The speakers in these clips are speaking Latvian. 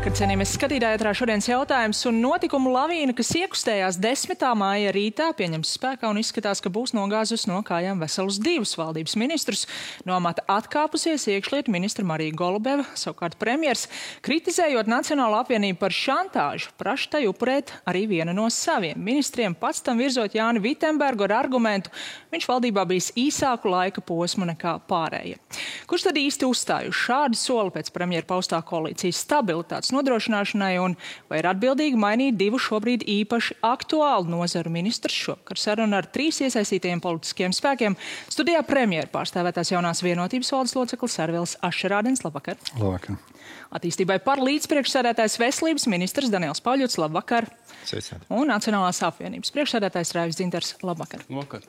Labvakar, cienījamies skatītāji, ētrā šodienas jautājums un notikumu lavīna, kas iekustējās 10. māja rītā, pieņems spēkā un izskatās, ka būs nogāzus no kājām veselus 2 valdības ministrus. No amata atkāpusies iekšlietu ministra Marija Golubeva, savukārt premjers, kritizējot Nacionālo apvienību par šantāžu, praš tai upurēt arī vienu no saviem ministriem, pats tam virzot Jāni Vitenbergu ar argumentu, viņš valdībā bijis īsāku laika posmu nekā pārējie. Kurš tad īsti uzstāj uz šādu soli pēc premjera paustā koalīcijas stabilitātes nodrošināšanai un vai ir atbildīgi mainīt 2 šobrīd īpaši aktuālu nozaru ministrus? Šovakar saruna ar 3 iesaistītajiem politiskiem spēkiem. Studijā premjera pārstāvētās jaunās vienotības valdes loceklis Arvils Ašerādens. Labvakar. Labvakar. Attīstībai par līdzpriekšsēdētājs veselības ministrs Daniels Pauļots. Labvakar. Sveicināti. Un Nacionālās apvienības priekšsēdētājs Raivis Dzintars. Labvakar. Labvakar.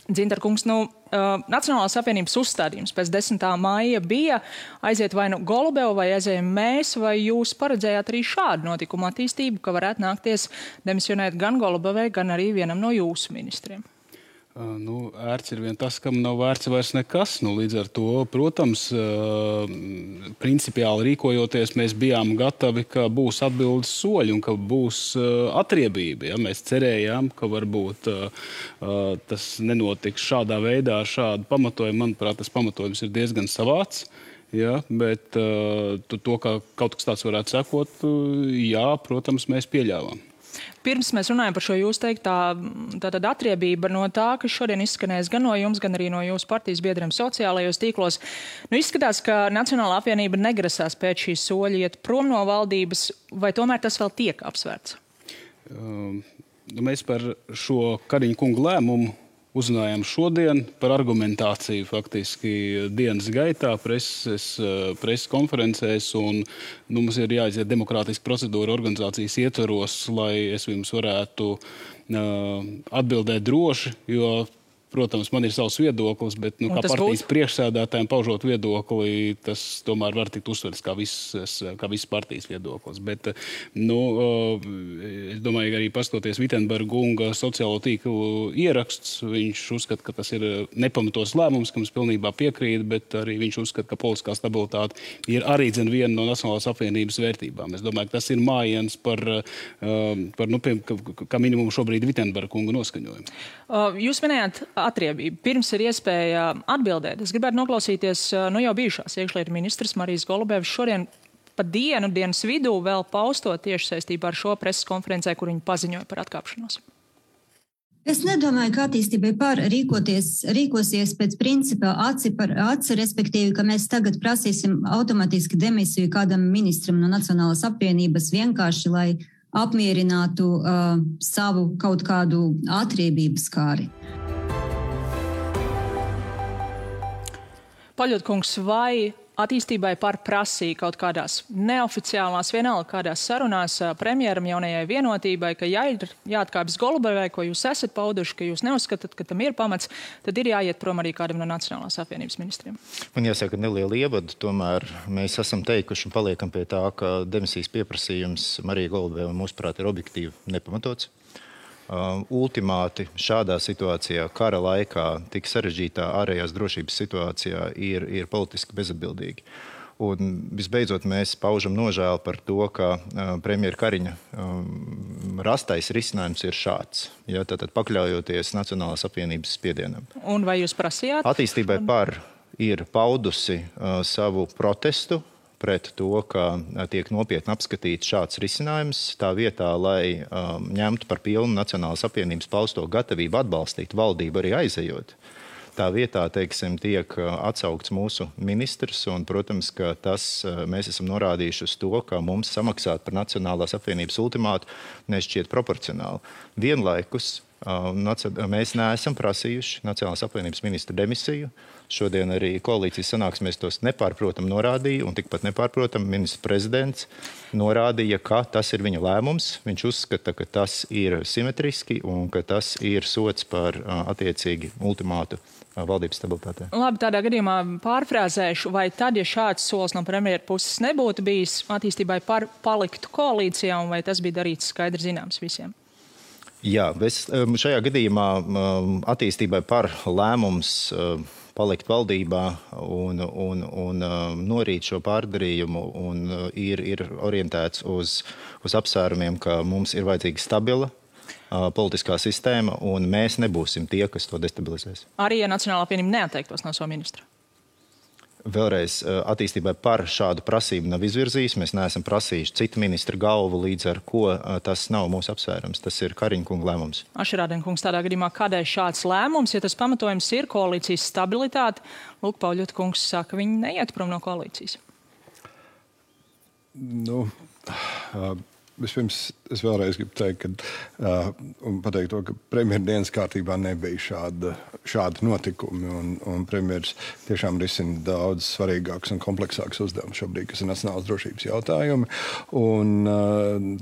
Dzintar kungs, Nacionālās apvienības uzstādījums pēc 10. māja bija aiziet vai nu Golubeva vai aizējam mēs, vai jūs paredzējāt arī šādu notikumu attīstību, ka varētu nākties demisionēt gan Golubevai, gan arī vienam no jūsu ministriem? Ērts ir vien tas, kam nav vērts vairs nekas. Līdz ar to, protams, principiāli rīkojoties, mēs bijām gatavi, ka būs atbildes soļi un ka būs atriebība. Ja? Mēs cerējām, ka varbūt tas nenotiks šādā veidā, šādu pamatojumu. Manuprāt, tas pamatojums ir diezgan savāds. Ja? Bet to, ka kaut kas tāds varētu sekot, jā, protams, mēs pieļāvām. Pirms mēs runājam par šo jūs teiktā atriebība no tā, kas šodien izskanēs gan no jums, gan arī no jūsu partijas biedriem sociālajos tīklos. Izskatās, ka Nacionālā apvienība negrasās pēc šī soļa iet prom no valdības, vai tomēr tas vēl tiek apsvērts? Mēs par šo Kariņa kunga lēmumu uzzinājām šodien par argumentāciju faktiski dienas gaitā, preses konferencēs, un mums ir jāiziet demokrātiska procedūra organizācijas ietvaros, lai es jums varētu atbildēt droši, jo, protams, man ir savs viedoklis, bet kā partijas priekšsēdētājiem paužot viedokli, tas tomēr var tikt uzsverts kā viss partijas viedoklis. Bet, es domāju, arī paskatoties Vitenberga kunga sociālo tīklu ieraksts, viņš uzskata, ka tas ir nepamatos lēmums, kam es pilnībā piekrītu, bet arī viņš uzskata, ka politiskā stabilitāte ir arī viena no Nacionālās apvienības vērtībām. Es domāju, ka tas ir mājiens par kā minimumu šobrīd Vitenberga kunga noskaņojumu. Jūs minējāt atriebību. Pirms ir iespēja atbildēt. Es gribētu noklausīties jau bijušās iekšlietu ministras Marijas Golubevas šodien pa dienas vidū vēl paustot tieši saistībā ar šo preses konferencē, kur viņi paziņoja par atkāpšanos. Es nedomāju, ka attīstībai par rīkosies pēc principa aci par aci, respektīvi, ka mēs tagad prasīsim automātiski demisiju kādam ministram no Nacionālās apvienības vienkārši, lai apmierinātu savu kaut kādu atriebības kāri. Pauļotkungs, vai attīstībai par prasīja kaut kādās neoficiālās, vienalga kādās sarunās premjeram jaunajai vienotībai, ka jāatkāpjas Golubevai, ko jūs esat pauduši, ka jūs neuzskatāt, ka tam ir pamats, tad ir jāiet prom arī kādam no Nacionālās apvienības ministriem? Man jāsaka neliela ievada, tomēr mēs esam teikuši un paliekam pie tā, ka demisijas pieprasījums Marija Golubeva mūsuprāt ir objektīvi nepamatots. Ultimāti šādā situācijā, kara laikā, tik sarežģītā ārējās drošības situācijā ir politiski bezatbildīgi. Un visbeidzot mēs paužam nožēlu par to, ka premjera Kariņa rastais risinājums ir šāds, ja, tātad pakļaujoties Nacionālās apvienības spiedienam. Un vai jūs prasījāt? Attīstībai par ir paudusi savu protestu pret to, ka tiek nopietni apskatīts šāds risinājums, tā vietā, lai ņemtu par pilnu Nacionālās apvienības pausto gatavību atbalstīt valdību arī aizejot. Tā vietā, teiksim, tiek atsaukts mūsu ministrs, un, protams, ka mēs esam norādījuši uz to, ka mums samaksāt par Nacionālās apvienības ultimātu nešķiet proporcionāli. Vienlaikus mēs neesam prasījuši Nacionālās apvienības ministra demisiju. Šodien arī koalīcijas sanāksmēs tos nepārprotam norādīja, un tikpat nepārprotam ministrs prezidents norādīja, ka tas ir viņa lēmums. Viņš uzskata, ka tas ir simetriski un ka tas ir sots par attiecīgi ultimātu valdības stabilitātē. Labi, tādā gadījumā pārfrāzēšu, vai tad, ja šāds solis no premjera puses nebūtu bijis, attīstībai par paliktu koalīcijā, un vai tas bija darīts skaidri zināms visiem? Jā, šajā gadījumā attīstībai par lēmums palikt valdībā un norīt šo pārdarījumu un ir orientēts uz apsvērumiem, ka mums ir vajadzīga stabila politiskā sistēma, un mēs nebūsim tie, kas to destabilizēs. Arī, ja Nacionālā apvienība neatteiktos no savu ministru? Vēlreiz attīstībai par šādu prasību nav izvirzījis. Mēs neesam prasījuši citu ministru galvu, līdz ar ko tas nav mūsu apsvērums. Tas ir Kariņa kunga lēmums. Ašerādien kungs, tādā gadījumā kādēļ šāds lēmums, ja tas pamatojums ir koalīcijas stabilitāte? Lūk, Pauļota kungs saka, viņi neiet prom no koalīcijas. Vispirms es vēlreiz gribu teikt, un pateikt to, ka premjera dienas kārtībā nebija šādi notikumi, un premjeras tiešām risina daudz svarīgāks un kompleksāks uzdevums šobrīd, kas ir nacionālas drošības jautājumi. Un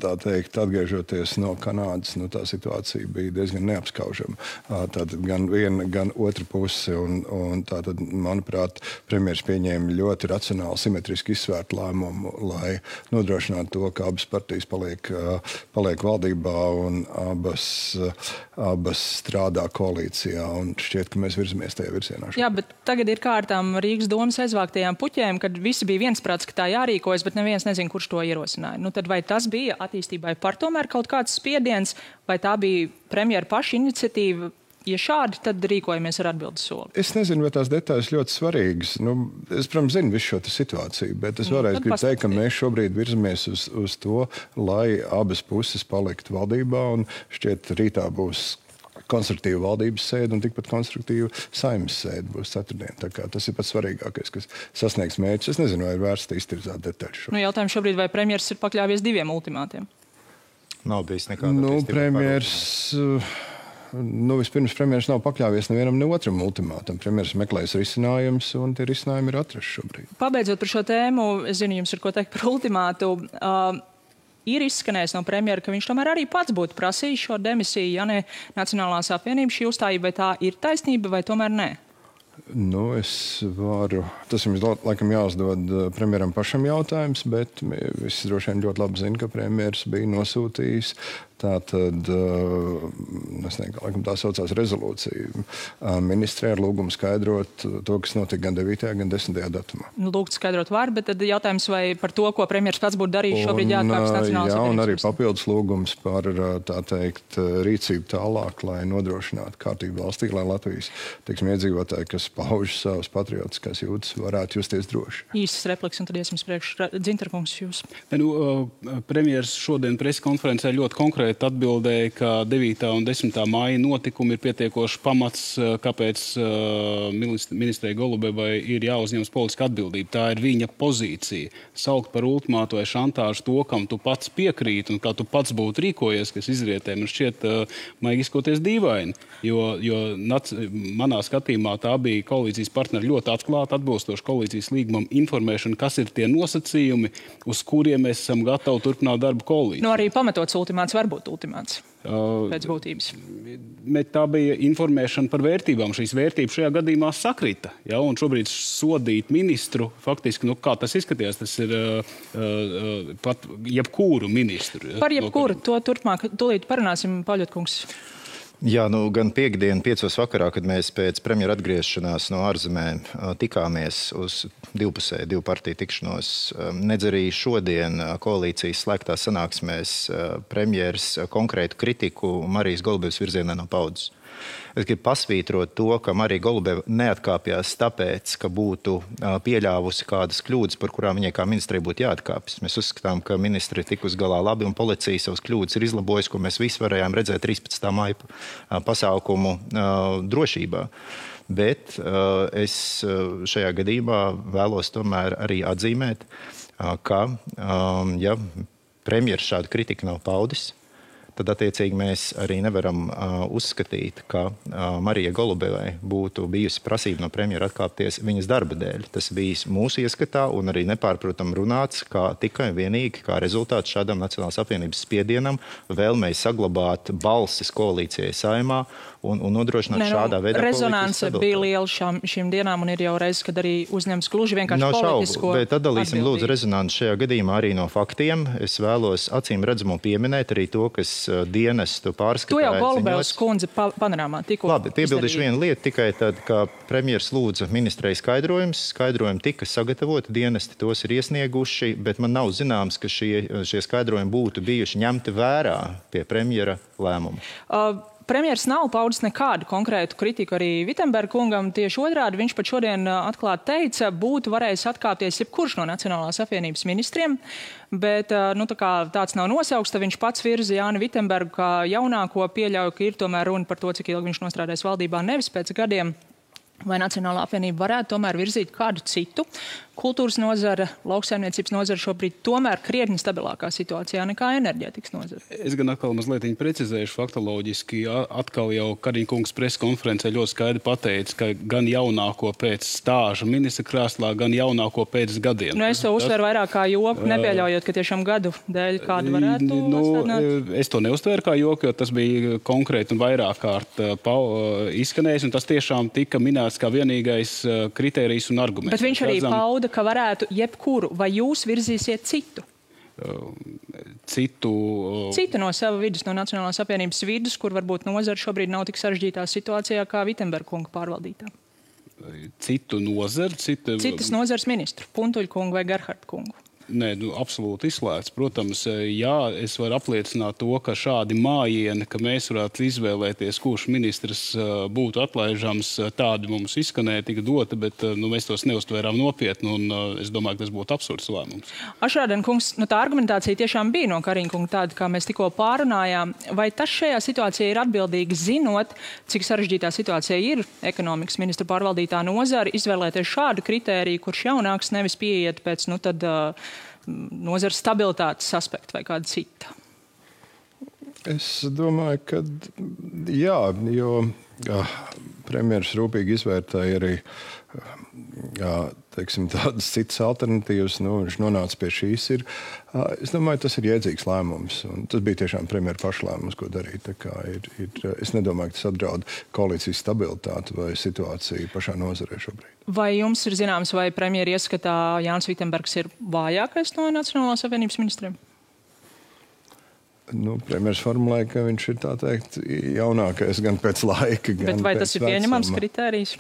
tā teikt, atgriežoties no Kanādas, tā situācija bija diezgan neapskaužama. Tātad gan viena, gan otra puse, un tātad, manuprāt, premjeras pieņēma ļoti racionāli, simetriski izsvērtu lēmumu, lai nodrošinātu to, ka abas partijas paliek valdībā un abas strādā koalīcijā, un šķiet, ka mēs virzamies tajā virzienā. Jā, bet tagad ir kārtām Rīgas domas aizvāktajām puķēm, kad visi bija viensprāts, ka tā jārīkojas, bet neviens nezina, kurš to ierosināja. Tad vai tas bija attīstībai par tomēr kaut kāds spiediens, vai tā bija premjera paša iniciatīva? Ja šādi, tad rīkojamies ar atbildes soli. Es nezinu, vai tās detaļas ļoti svarīgas. Es, protams, zinu visu šo situāciju, bet es vēlreiz gribu teikt, ka mēs šobrīd virzamies uz to, lai abas puses paliktu valdībā, un šķiet rītā būs konstruktīva valdības sēde un tikpat konstruktīva Saeimas sēde būs ceturtdien. Tā kā tas ir pats svarīgākais, kas sasniegs mērķus. Es nezinu, vai ir vērts iztirzāt detaļas. Jautājums šobrīd, vai premjers ir pakļāvies 2 ultimātiem? Nav bijis nekāda premjers... Vispirms premjeras nav pakļāvies nevienam ne otram ultimātam. Premjeras meklēs risinājums, un tie risinājumi ir atrasti šobrīd. Pabeidzot par šo tēmu, es zinu, jums ir ko teikt par ultimātu. Ir izskanējis no premjera, ka viņš tomēr arī pats būtu prasījis šo demisiju, ja ne Nacionālās apvienības šī uzstājība, vai tā ir taisnība, vai tomēr nē? Tas jums laikam jāuzdod premjeram pašam jautājums, bet visi droši vien ļoti labi zina, ka premjeras bija nosūtījis tātad, es nezinu, laikam tā saucās rezolūcija, ministrē ar lūgumu skaidrot to, kas notika gan 9. gan 10. datumā. Lūgt skaidrot var, bet tad jautājums, vai par to, ko premjers pats būtu darījis, šobrīd jāatkāpjas Nacionālās apvienības. Un arī papildus lūgums par, tā teikt, rīcību tālāk, lai nodrošinātu kārtību valstī, lai Latvijas, iedzīvotāji, kas pauž savas patriotiskās jūtas, varētu justies droši. Īsas repliks, un tad iesim priekš. Dzintarkungs, jūs. Premjers šodien preskonferencē ļoti konkrēti atbildēja, ka 9. un 10. māja notikumi ir pietiekoši pamats, kāpēc ministrei Golubevai ir jāuzņemas politiska atbildība. Tā ir viņa pozīcija. Saukt par ultimātu vai šantāžu to, kam tu pats piekrīt un kā tu pats būtu rīkojies, kas izrietē, man šķiet, maigi izkoties dīvaini. Jo manā skatījumā tā bija koalīcijas partneri ļoti atklāti, atbilstoši koalīcijas līgumam informēšana, kas ir tie nosacījumi, uz kuriem mēs esam gatavi turpināt darbu koalīciju. Arī pamatots ultimāts var būt ultimāts pēc būtības. Tā bija informēšana par vērtībām. Šīs vērtības šajā gadījumā sakrita. Ja? Un šobrīd sodīt ministru, faktiski, kā tas izskatījās, tas ir pat jebkuru ministru. Ja? Par jebkuru, to turpmāk, tūlīt parunāsim, Pauļota kungs. Jā, gan piekdien 5. vakarā, kad mēs pēc premjera atgriešanās no ārzemēm tikāmies uz divu partiju tikšanos, nedz arī šodien koalīcijas slēgtās sanāksmēs premjeras konkrētu kritiku Marijas Golubevas virzienā nav paudis. Es gribu pasvītrot to, ka Marija Golubeva neatkāpjās tāpēc, ka būtu pieļāvusi kādas kļūdas, par kurām viņai kā ministrei būtu jāatkāpjas. Mēs uzskatām, ka ministri ir tikus galā labi un policija savas kļūdas ir izlabojusi, ko mēs visi varējām redzēt 13. māja pasākumu drošībā. Bet es šajā gadījumā vēlos tomēr arī atzīmēt, ka ja premjeras šādu kritiku nav paudis, tad attiecīgi mēs arī nevaram uzskatīt, ka Marijai Golubevai būtu bijusi prasība no premjera atkāpties viņas darba dēļ. Tas bijis mūsu ieskatā un arī nepārprotam runāts, kā tikai vienīgi kā rezultāts šādam Nacionālās apvienības spiedienam vēlmei saglabāt balsis koalīcijai Saeimā un nodrošināt šādā veidā rezonanse bija liela šīm dienām un ir jau reizes, kad arī uzņems gluži vienkārši politisko bet atdalīsim lūdzu rezonanci šajā gadījumā arī no faktiem. Es vēlos acīm redzamo pieminēt arī to, kas dienestu pārskatā. To jau Golubevs kundze panorāmā tikko. Labi, piebildīšu vienu lietu tikai tad, ka premjers lūdza ministrei skaidrojums. Skaidrojumi tika sagatavoti, dienesti tos ir iesnieguši, bet man nav zināms, ka šie skaidrojumi būtu bijuši ņemti vērā pie premjera lēmuma. Premjers nav paudis nekādu konkrētu kritiku arī Vitsenberga kungam. Tieši otrādi viņš pat šodien atklāti teica, būtu varējis atkāpties jebkurš no Nacionālās apvienības ministriem, bet tā kā tāds nav nosaukts, tad viņš pats virza Jāni Vitsenbergu kā jaunāko, pieļauju, ka ir tomēr runa par to, cik ilgi viņš nostrādājis valdībā, nevis pēc gadiem. Vai Nacionālā apvienība varētu tomēr virzīt kādu citu kultūras nozara, lauksaimniecības nozara šobrīd tomēr krietni stabilākā situācijā nekā enerģētikas nozara? Es gan atkal mazliet precizēšu faktoloģiski. Atkal jau Kariņa kungs preskonferencē ļoti skaidri pateica, ka gan jaunāko pēc stāža ministra krēslā, gan jaunāko pēc gadiem. Es to uztveru vairāk kā joku, nepieļaujot, ka tiešām gadu dēļ kādu varētu atstādināt. Es to neuztveru kā joku, jo tas bija konkrēti un vairāk kārt izskanējis, un tas tiešām tika minēts kā vienīgais kritērijs un arguments. Bet viņš arī pauda, ka varētu jebkuru, vai jūs virzīsiet citu? Citu no sava vidus, no Nacionālās apvienības vidus, kur varbūt nozara šobrīd nav tik sarežģītā situācijā kā Vitsenberga kunga pārvaldītā. Citu nozaru? Citas nozares ministru, Puntuļa kungu vai Gerharda kungu. Nē, absolūti izslēgts. Protams, jā, es varu apliecināt to, ka šādi mājieni, ka mēs varētu izvēlēties, kurš ministrs būtu atlaižams, tādi mums izskanēja, tika dota, bet mēs tos neuztvērām nopietni, un es domāju, ka tas būtu absurds lēmums. Ašrādena kungs, tā argumentācija tiešām bija no Kariņa kunga tāda, kā mēs tikko pārunājām. Vai tas šajā situācijā ir atbildīgi, zinot, cik sarežģītā situācija ir ekonomikas ministra pārvaldītā nozara, izvēlēties šādu kritēriju, kurš jaunāks nevis pieiet pēc, nozares stabilitātes aspekta vai kāda cita? Es domāju, ka jā, jo premjeras rūpīgi izvērtēja arī tādas citas alternatīvas. Viņš nonāca pie šīs. Es domāju, tas ir jēdzīgs lēmums. Tas bija tiešām premjera paša lēmums, ko darīt. Es nedomāju, ka tas apdraud koalīcijas stabilitāti vai situāciju pašā nozarē šobrīd. Vai jums ir zināms, vai premjera ieskatā Jānis Vitsenbergs ir vājākais no Nacionālās apvienības ministriem? Premjeras formulēja, ka viņš ir tā teikt jaunākais gan pēc laika, gan bet vai pēc tas ir pieņemams kritērijs?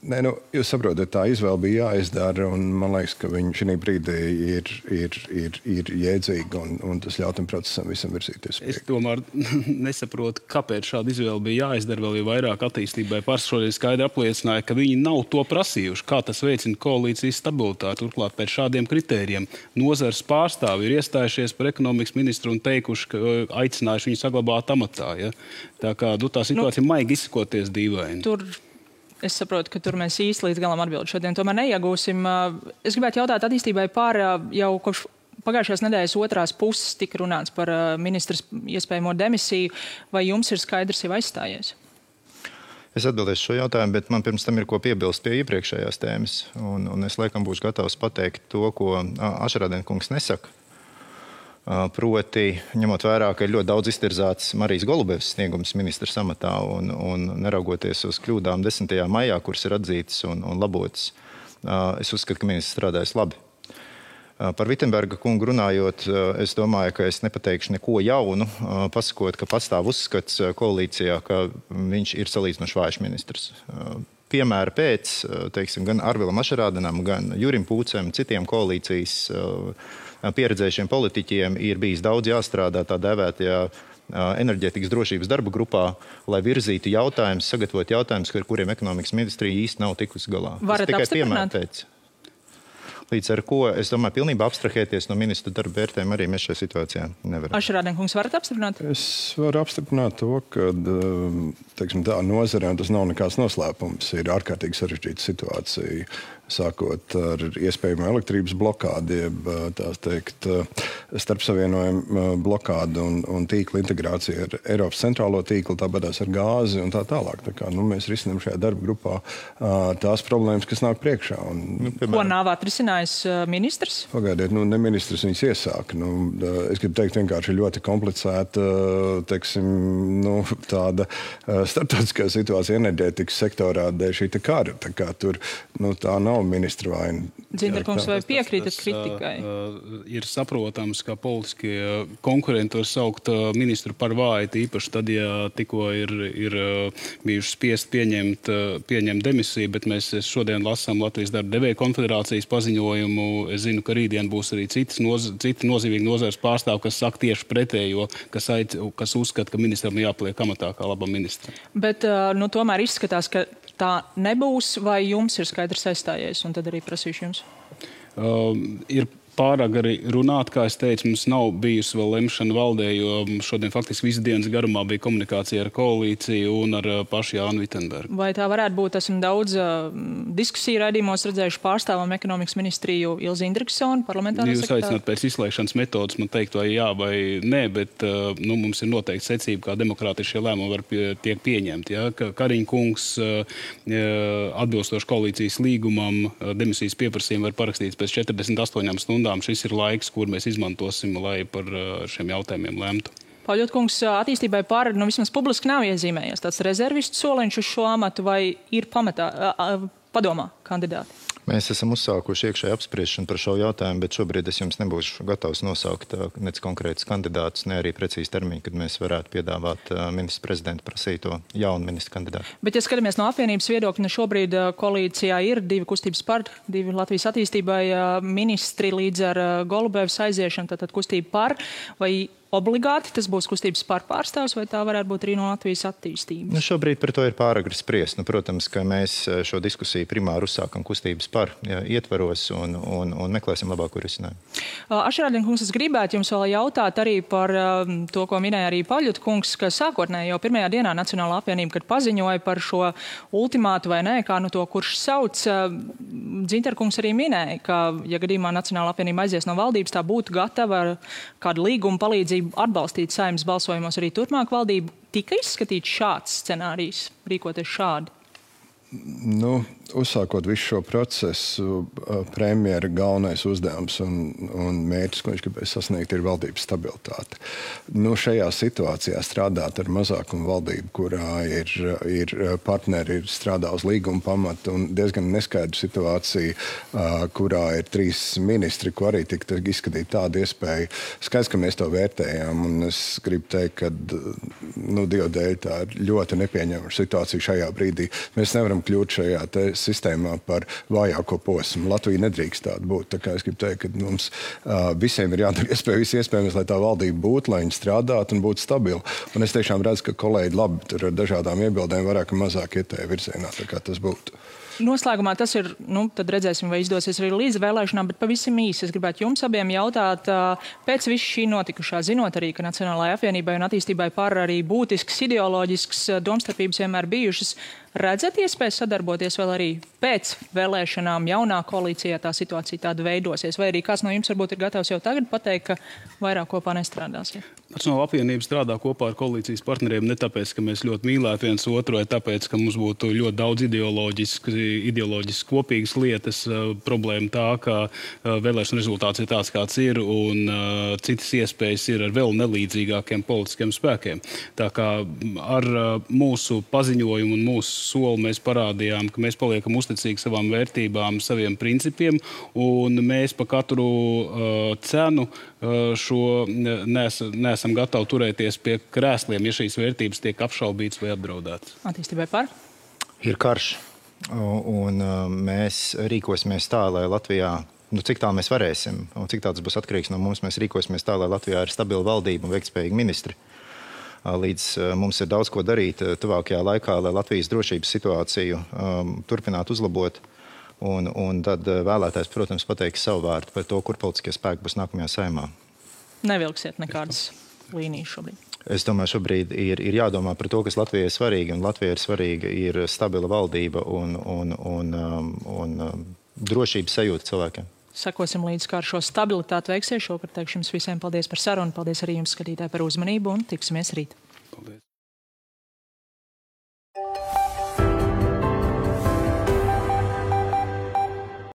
Nē, jūs saprotat, tā izvēle bija jāizdara, un man liekas, ka viņš šī brīdī ir jēdzīga, un tas ļauj tam procesam visam virzīties. Es tomēr nesaprotu, kāpēc šāda izvēle bija jāizdara, vēl jau vairāk attīstībai. Šodien skaidri apliecināja, ka viņi nav to prasījuši, kā tas veicina koalīcijas stabilitāti. Turklāt pēc šādiem kritērijiem nozares pārstāvi ir iestājušies par ekonomikas ministru un teikuši, ka aicinājuši viņu saglabāt amatā. Ja? Tā kā tā situācija maigi izsakoties dīvaini. Es saprotu, ka tur mēs īsti līdz galam atbildi šodien tomēr neiegūsim. Es gribētu jautāt attīstībai par jau kopš pagājušās nedēļas otrās puses tika runāts par ministras iespējamo demisiju. Vai jums ir skaidrs jau aizstājies? Es atbildēšu šo jautājumu, bet man pirms tam ir ko piebilst pie iepriekšējās tēmas. Un es laikam būšu gatavs pateikt to, ko Ašrādena kungs nesaka. Proti, ņemot vērā, ka ir ļoti daudz iztirzāts Marijas Golubevas sniegums ministra amatā un neraugoties uz kļūdām 10. maijā, kuras ir atzītas un labotas, es uzskatu, ka ministrs strādājas labi. Par Vitsenberga kungu runājot, es domāju, ka es nepateikšu neko jaunu, pasakot, ka pastāv uzskats koalīcijā, ka viņš ir salīdzinoši vājš ministrs. Piemēra pēc, gan Arvilam Ašrādenam, gan Jurim Pūcem, citiem koalīcijas pieredzējušiem politiķiem ir bijis daudz jāstrādā tā dēvētajā enerģētikas drošības darba grupā, lai virzītu jautājumus, sagatavot jautājumus, ar kuriem ekonomikas ministrija īsti nav tikusi galā. Varat apstiprināt? Līdz ar ko, es domāju, pilnībā abstrahēties no ministra darba vērtējuma arī mēs šajā situācijā nevaram. Ašrādena kungs, varat apstiprināt? Es varu apstiprināt to, ka tā nozare, un tas nav nekāds noslēpums, ir ārkārtīgi sarežģīta situācija, sākot ar iespējamu elektrības blokādi, starpsavienojumu blokādu un tīkla integrāciju ar Eiropas centrālo tīklu, tāpatās ar gāzi un tā tālāk. Mēs risinām šajā darba grupā tās problēmas, kas nāk priekšā. Ko nav atrisinājis ministrs? Pagaidiet, ne ministrs viņus iesāka. Es gribu teikt, vienkārši ļoti komplicēta, tāda starptautiskā situācija enerģētikas sektorā dēļ šī kara. Tā nav nav ministra vaina. Dzintarkungs, vai piekrītat kritikai? Ir saprotams, ka politiskie konkurenti var saukt ministru par vāju, īpaši tad, ja tikko ir bijuši spiest pieņemt demisiju, bet mēs šodien lasām Latvijas darba devēju konfederācijas paziņojumu. Es zinu, ka rītdien būs arī citi nozīmīgi nozares pārstāvi, kas saka tieši pretējo, kas uzskata, ka ministram jāpaliek amatā kā labam ministram. Bet tomēr izskatās, ka tā nebūs, vai jums ir skaidrs aizstājies, un tad arī prasīšu jums? Ir pārāk arī runāt, kā es teicu, mums nav bijusi vēl lemšana valdē, jo šodien faktiski visu dienas garumā bija komunikācija ar koalīciju un ar pašu Jānu Vitenbergu. Vai tā varētu būt, esam daudz diskusiju raidījumos redzējuši pārstāvam ekonomikas ministriju Ilzi Indriksonu, parlamentāro sekretāru? Jūs aicināt pēc izslēgšanas metodas man teikt, vai jā vai nē, bet mums ir noteikti secība, kā demokrātiski šie lēmumi tiek pieņemti. Ja? Kariņa kungs atbilstoši koalīcijas līgumam demisijas pieprasījumu var parakstīt pēc 48 stundām. Šis ir laiks, kur mēs izmantosim, lai par šiem jautājumiem lemtu. Paļotkungs, attīstībai par, vismaz publiski nav iezīmējies tāds rezervistu soliņš uz šo amatu, vai ir padomā kandidāti? Mēs esam uzsākuši iekšēju apspriešanu par šo jautājumu, bet šobrīd es jums nebūšu gatavs nosaukt nec konkrētus kandidātus, ne arī precīzi termiņu, kad mēs varētu piedāvāt ministra prezidenta prasīto jaunu ministra kandidātu. Bet, ja skatāmies no apvienības viedokļa, šobrīd koalīcijā ir 2 kustības par, 2 Latvijas attīstībai ministri līdz ar Golubevas aiziešanu, tātad kustība par, vai obligāti tas būs kustības par pārstāvs, vai tā varētu būt arī no Latvijas attīstības? Šobrīd par to ir pāragri spriest. Protams, ka mēs šo diskusiju primāri uzsākam kustības par ietvaros un meklēsim labāko risinājumu. Ašerādien-kungs, es gribētu jums vēl jautāt arī par to, ko minēja arī Paļotkungs, ka sākotnēji jau pirmajā dienā Nacionālā apvienība, kad paziņoja par šo ultimātu vai nē, kā to kurš sauc, Dzintarkungs arī minēja, ka, ja gadījumā Nacionālā apvienība aizies no valdības, tā būtu gatava ar kādu līgumu palīdzību atbalstīt Saeimas balsojumos arī turpmāk valdību. Tika izskatīts šāds scenārijs, rīkoties šādi? Uzsākot visu šo procesu, premjera galvenais uzdevums un mērķis, ko viņš gribēja sasniegt, ir valdības stabilitāte. Šajā situācijā strādāt ar mazākumu valdību, kurā ir partneri, strādā uz līguma pamata un diezgan neskaidra situācija, kurā ir 3 ministri, ko arī tika izskatīt tādu iespēju. Skaidrs, ka mēs to vērtējām, un es gribu teikt, ka Dieva dēļ tā ir ļoti nepieņemama situācija šajā brīdī. Mēs nevaram kļūt šajā sistēmā par vājāko posmu. Latvija nedrīkst tāda būt. Tā kā es gribu teikt, ka mums visiem ir jādara iespējams, lai tā valdība būtu, lai viņi strādātu un būtu stabila. Un es tiešām redzu, ka kolēģi labi tur ar dažādām iebildēm vairāk un mazāk iet tajā virzienā, tā kā tas būtu. Noslēgumā tas ir, tad redzēsim, vai izdosies arī līdz vēlēšanām, bet pavisam īsi es gribētu jums abiem jautāt, pēc visu šī notikušā, zinot arī, ka Nacionālajai apvienībai un attīstībai par arī būtisks, ideoloģisks domstarpības vienmēr bijušas, redzat iespēju sadarboties vēl arī pēc vēlēšanām jaunā koalīcijā tā situācija tāda veidosies, vai arī kāds no jums varbūt ir gatavs jau tagad pateikt, ka vairāk kopā nestrādāsiet? Nacionālā apvienība strādā kopā ar koalīcijas partneriem ne tāpēc, ka mēs ļoti mīlētu viens otru, vai tāpēc, ka mums būtu ļoti daudz ideoloģiski kopīgas lietas. Problēma tā, ka vēlēšana rezultāts ir tāds, kāds ir, un citas iespējas ir ar vēl nelīdzīgākiem politiskiem spēkiem. Tā kā ar mūsu paziņojumu un mūsu soli mēs parādījām, ka mēs paliekam uzticīgi savām vērtībām, saviem principiem, un mēs pa katru cenu šo neesam gatavi turēties pie krēsliem, ja šīs vērtības tiek apšaubītas vai apdraudētas. Attīstībai par? Ir karš, un mēs rīkosimies tā, lai Latvijā, cik tā mēs varēsim, un cik tā tas būs atkarīgs no mums, mēs rīkosimies tā, lai Latvijā ir stabila valdība un veiktspējīgi ministri. Līdz mums ir daudz ko darīt tuvākajā laikā, lai Latvijas drošības situāciju turpinātu uzlabot. Un tad vēlētājs, protams, pateiks savu vārdu par to, kur politiskie spēki būs nākamajā Saeimā. Nevilksiet nekādas līnijas šobrīd? Es domāju, šobrīd ir jādomā par to, kas Latvijai ir svarīgi. Un Latvijai ir svarīga ir stabila valdība un drošības sajūta cilvēkiem. Sekosim līdz, kā ar šo stabilitāti veiksies. Šovakar teikšu jums visiem paldies par sarunu. Paldies arī jums, skatītāji, par uzmanību un tiksimies rīt. Paldies.